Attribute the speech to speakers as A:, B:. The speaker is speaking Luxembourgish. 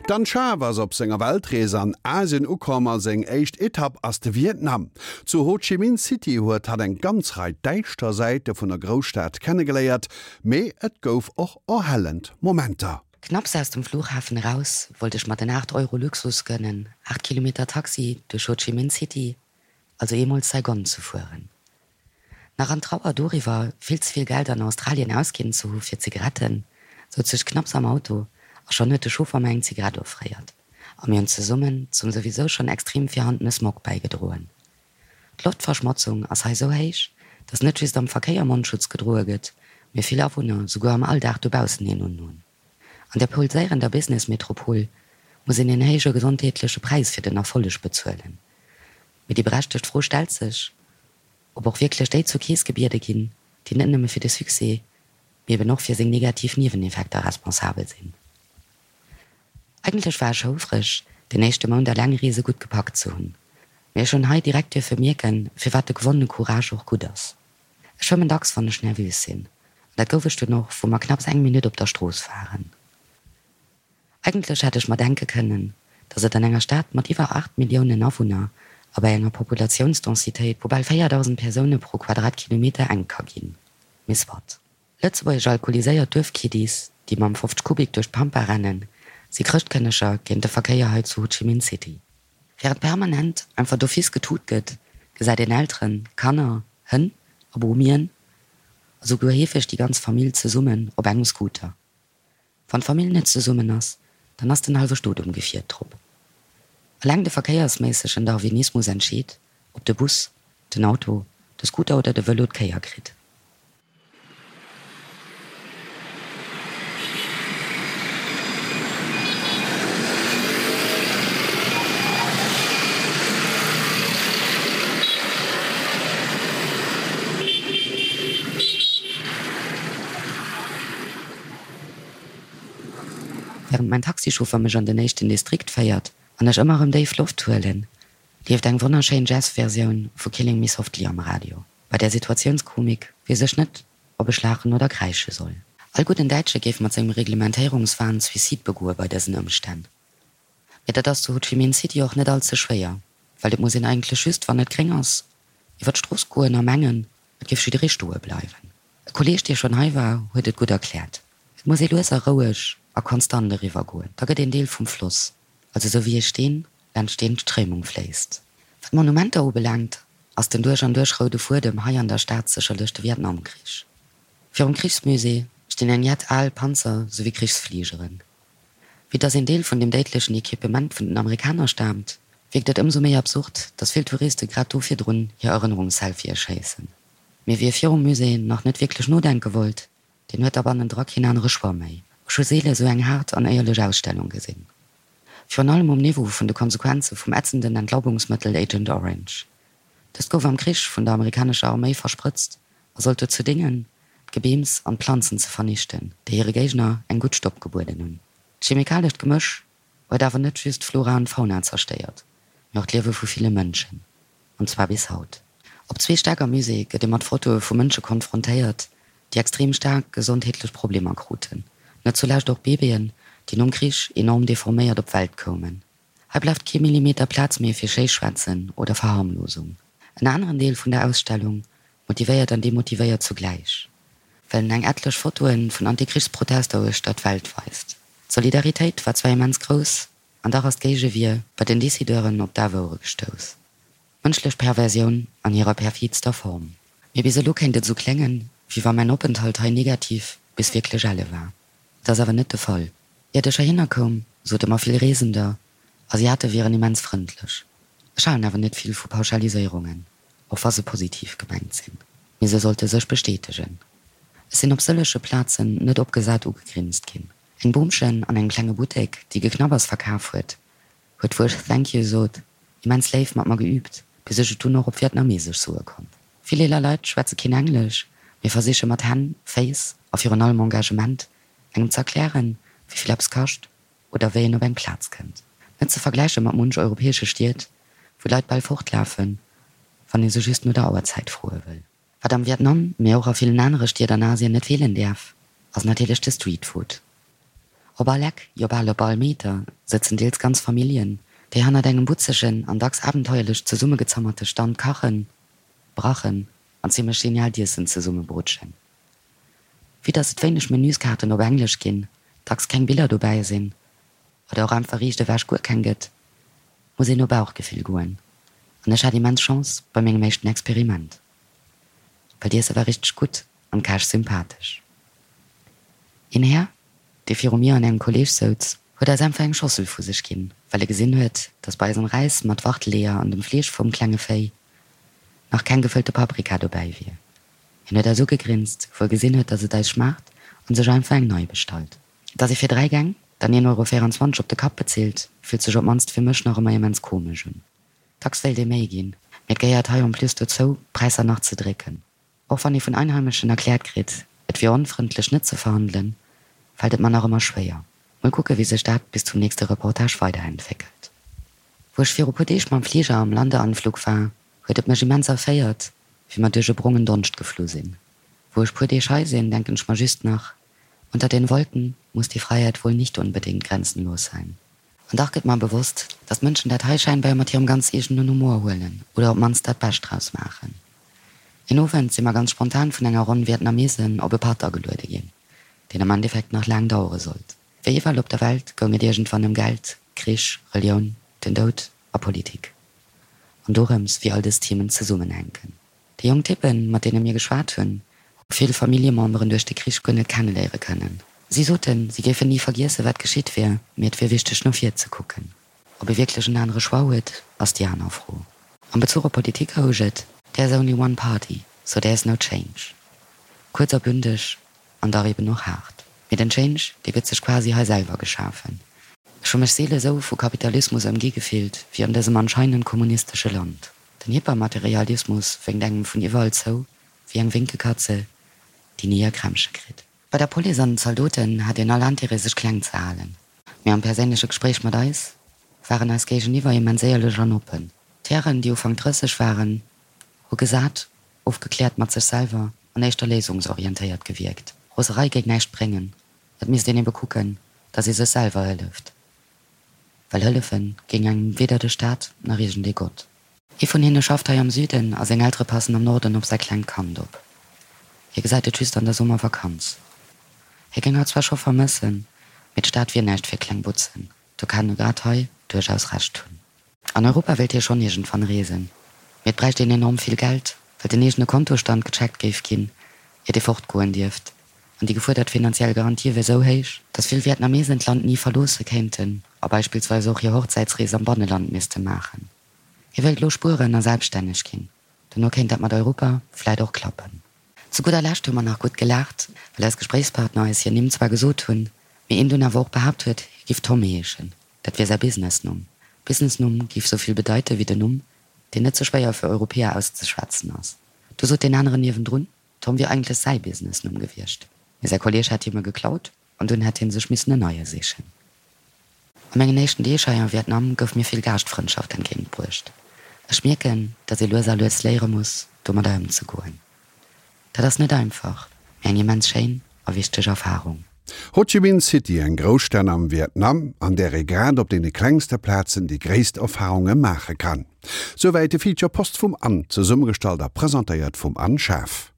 A: D'Anne Schaaf ass op senger Weltrees an Asien ukomm a seng éischt Etapp ass de Vietnam. Zu Ho Chi Minh City huet hatt eng ganz Rei däischter Säite vun der Grousstad kennegeléiert, mee et gouf och erhellend Momenter.
B: Knapps aus dem Flughafen eraus wollt ech mer den 8 Euro Luxus gönnen, 8 Kilometer Taxi duerch Ho Chi Minh City, also eemol Saigon ze fueren. Nach an Trauer doriwwer, vill ze vill Geld an Australien ausginn ze hu fir Zigaretten, souz ech knapps am Auto a schonn huet de Chauffer mer eng Zigarett offréiert a mir hunn zesummen zum souwisou schonn extrem virhandene Smog bäigedroen. D'Loftverschmotzung ass hei sou héich, dass net just am Verkéier Mondschutz gedroe gëtt, mee vill Awunner souguer am Alldag dobaussen een unhunn. An der pulséierender Business-Metropol muss een een héije gesondheetleche Präis fir den Erfolleg bezuelen. Mee déi berechtegt Fro stellt sech, ob och wierklech déi zur Keess gebiede ginn, déi net nëmme fir de Succès, mee eben och fir seng negativ Nieweneffekter responsabel sinn. Eigentlech war ech houfreg, den éischte Mount Allengreese gutt gepackt ze hunn. Mee ech hunn hei direkt duerfe mierken, firwat de gewonnene Courage och gutt ass. Ech schwëmmen dacks, wann ech nervös sinn. An dat gouf ech dunn och, wou mer knapps eng Minutt op der Strooss waren. Eigentlech hätt ech mer denke kënnen, datt et an enger Stad mat iwwer 8 Milliounen Awunner a bei enger Populatiounsdensitéit vu bal 4.000 Persoune pro Quadratkilometer enk ka ginn. Mee soit. Lëtzebuergesch alkoholiséiert Duerfkiddies, déi mam 50 Kubik duerch d'Pampa rennen, si Chrëschtkënneger géint de Verkéier hei zu Ho Chi Minh City. Wärend permanent einfach d'office getut gëtt, gesäit een Elteren, Kanner, Hënn a Bomien a souguer heefeg déi ganz Famill zesummen op engem Scooter. Wann d'Famill net zesummen ass, dann ass den hallwe Stot um Gefier drop. Eleng de verkéiersméissegen Darwinismus entscheet, ob de Bus, den Auto, de Scooter oder de Vëlo d'Kéier kritt. Wärend mäin Taxichauffer mech an den éischten Distrikt féiert an ech ëmmer erëm déif Loft huelen, leeft eng wonnerschéin Jazz-Versioun vu Killing Me Softly am Radio. Bei där Situatiounskomik weess ech net, ob ech laachen oder kräische soll. All gudden Däitsche géif mat sengem Reglementéierungswahn Suicide begoe bei dësen Ëmstänn. Mee dat ass zu Ho Chi Minh City och net all ze schwéier, well et muss een eigentlech just, wann et gréng ass, iwwer d'Strooss goen a mengen, et géif jidderee stoe bleiwen. E Kolleeg, dee schonn hei war, huet et gutt erkläert, Et muss ee lues a roueg a konstant eriwwer goen, da gëtt een Deel vum Floss, also esou wéi ee Steen laanscht deen d'Stréimung fléisst. Wat d'Monumenter ubelaangt, ass den duerch an duerch roude Fuedem hei an der Stad sécherlech de Vietnamkrich. Virum Krichsmusée stinn eng jett al Panzer souwéi Krichsfligeren. Vue dass een Deel vun dem déidlechen Equipement vun den Amerikaner staamt, wierkt et ëmsou méi absurd, dass vill Touriste grad do virdrun hir Erënnerungsselfië schéissen. Mee wie virum Musée nach net wierklech nodenke wollt, deen huet da bannendra keen anere Choix méi. Ech hu seele sou eng haart an éierlech Ausstellung gesinn. Virun allem um Niveau vun de Konsequenze vum ätzenden Entlaubungsmëttel Agent Orange. Dëst gouf am Krich vun der amerikanescher Arméi versprëtzt a sollt dozou déngen, d'Gebeems an d'Planzen ze vernichten, déi hire Géigner eng gutt Stopp gebueden hunn. D'chemikalescht Gemësch huet awer net just d'Flora an d'Fauna zerstéiert, mee och d'Liewe vu ville Mënschen, an zwar bis haut. Op zwee Stäck am Musée gëtt ee mat Fotoe vu Mënsche konfrontéiert, déi extrem staark gesondheetlech Problemer kruten, net zulescht och Babyen, déi nom Krich enorm deforméiert op d'Welt koumen. Hei bleift kee Millimeter Plaz méi fir Schéischwätzen oder Verharmlosung. En aneren Deel vun der Ausstellung motivéiert an demotivéiert zugläich, well en eng etlech Fotoe vun Antikrichsprotester uechter d'Welt weist. D'Solidaritéit war zwar immens grouss, an dach ass d'Géigewier bei den Decideuren op daf Ouere gestouss. Mënschlech Perversioun an hirer perfidster Form. Mee bis elo kéint et esou kléngen, wéi wa mäin Openthalt hei negativ bis wierklech elle war. Et ass awer net de Fall. Iert ech heihinner koum, sote mer vill Reesender, Asiate wieren immens frëndlech. Ech halen awer net vill vu Pauschaliséierungen, och wa se positiv gemengt sinn. Mee se sollte sech bestätegen. Ech sinn op sëllege Plazen net opgesat ugegrinst ginn. Eng Boomchen an engem klenge Buttek, déi Geknabbers verkaf huet, huet wou ech Thank you sot, immens léif mat mer geübt, bis ech et dunn och op Vietnamesesch soe konnt. Vill eeler Leit schwätze keen Englesch, mee versiche mat Hänn, Féiss a virun allem Engagement engem z'erklären, wéi vill eppes kascht oder wéi een op eng Plaz kënnt. Net ze vergläiche mat munch europäesche Stied, wou d'Leit bal fortlafen, wann ee se just no der Auerzäit froe wëll. Wat am Vietnam, mee och a villen anere Stied an Asien net feelen däerf, ass natierlech de Streetfood. Op all Eck, jo bal op all Meter, sëtzen deels ganz Familljen, déi hannert engem butzegen an dacks abenteuerlech zesummegezammerte Stand kachen, brachen an zimmlech geniaalt Iessen zesummebrutschen. Vue dass et wéineg Menüskaarten op Englesch ginn, dacks keng Biller dobäi sinn oder och einfach riicht ewech guer keng gëtt, muss een no Bauchgefill goen. An ech hat immens Chance bei mengem éischten Experiment, well d'Iesse war richteg gutt an d'Käch sympathesch. Een Här, dee viru mir an engem Kolleeg souz, huet eis einfach eng Schossel vu sech ginn, well e gesinn huet, dass bei eisem Räis mat Wachteleeër an dem Fleesch vum klenge Véi nach keng gefëllte Paprika dobäi wier. Hien huet eis ugegrinst, wou e gesinn huet, dass et eis schmaacht, an sech einfach eng nei bestallt. Dass ee fir 3 Gäng dann 1,24 Euro op de Kapp bezilt, fillt sech op d'mannst fir mech nach ëmmer immens komesch un. Dacks wéilt ee méi ginn, mee et gehéiert hei en plus dozou, d'Präisser nach ze drécken. Och wann ee vun Einheimeschen erkläert kritt, et wier onfrëndlech net ze verhandelen, fält et mer nach ëmmer schwéier. Mol kucke wéi sech dat bis zum nächste Reportage weiderentwéckelt. Wou ech viru puer Deeg mam Fliger am Landeanflug war, huet et mech immens erféiert, wéi mer duerch e brongen Donscht geflu sinn. Wou ech puer Deeg hei sinn, denken ech mer just nach, Unter den Wolken muss die Freiheit wohl nicht unbedingt grenzenlos sein. An dach gëtt mer bewosst, dass d'Mënschen dat hei scheinbar mat hirem ganz eegenen Humor huelen oder op d'mannst dat Bescht draus maachen. Een Owend si mer ganz spontan vun enger Ronn Vietnamesen op e Patt ageluede ginn, deen am Endeffekt nach laang dauere sollt. Wéi iwwerall op der Welt goung et iergendwann ëm Geld, Krich, Relioun, den Doud a Politik. An dorëms, wéi all dës Themen zesummenhänken. Déi jonk Typpen, mat deene mir geschwat hunn, hu vill Familljememberen duerch de Krich guer net kenneléiere kënnen. Si soten, si géifen ni vergiessen, wat geschitt wier, mee et wier wichteg, no vir ze kucken. Ob ee wierklech en anere Choix huet, ass déi aner Fro. Am Bezuch op Politik housch et, There's only one party, so there's no change. Kuerz a bündeg an dach eben och haart. Mee den Change, dee gëtt sech quasi hei selwer geschafen. Ech hu mech seele sou vu Kapitalismus ëmgi gefillt, wéi an dësem anscheinend kommunistesche Land. Den Hypermaterialismus wénkt engem vun iwwerall zou, wéi eng Wénkekatze, déi ni hir Krämpche kritt. Bei der Police an den Zaldoten hat een all Intérêt sech kleng ze halen. Mee am perséinleche Gespréich mat eis waren eis Géigeniwwer immens éierlech an oppen. D'Hären, déi Ufank 30 waren, hu gesat, ofgekläert mat sech selwer an éischter léisungsorientéiert gewierkt. Roserei géing näischt bréngen, et misst een ebe kucken, datt ee sech selwer hëlleft. Well hëllefe géing engem weder de Staat nach iergendee Gott. Ee vun hinne schafft hei am Süden a seng Eltere passen am Norden op säi klengt Kand op. Hie gesäit et just an der Summervakanz. Hie géing hatt zwar scho vermëssen, mee d'Stad wier näischt fir kleng Butzen. Do kann e grad hei duerchaus Recht hunn. An Europa wéilt hie schonn iergendwann reesen, mee et bräicht een enorm vill Geld, well den eegene Kontostand gecheckt géif ginn, iert ee fortgoen dierft. An déi gefuerdert finanziell Garantie wier sou héich, datt vill Vietnamesen d'Land ni verloosse kéinten a beispillsweis och hir Hochzäitsrees am Banneland misste maachen. Hie wéilt elo spueren a selbststänneg ginn. Dono kéint dat mat Europa vläit och klappen. Zu gudder Lescht hu mer nach gutt gelaacht, well eis Gespréichspartner eis hir Nimm zwar gesot hunn, mee een dunn awer och behaapt huet, hie giff Tom heeschen. Dat wier säi Businessnumm. Businessnumm géif sou vill bedeite wéi den Numm, deen net ze schwéier fir Europäer auszeschwätzen ass. Du sot deen aneren niewendrun, Tom wier eigentlech säi Businessnumm gewiescht, mee säi Kolleeg hätt him e geklaut an dunn hätt hie sech missen en neie sichen. A mengen éischten Deeg hei am Vietnam gouf mir vill Gaaschtfrëndschaft entgéint bruecht. Ech mierken, dass ee lues a lues léiere muss, domadder ëmzegoen. Dat ass net einfach, mee eng immens schéin a wichteg Erfarung.
A: Ho Chi Minh City, eng Grousstad am Vietnam, an där ee grad op deene klengste Plazen déi gréisst Erfarunge maache kann. Souwäit de Feature Post vum Anne, zesummegestallt a presentéiert vum Anne Schaaf.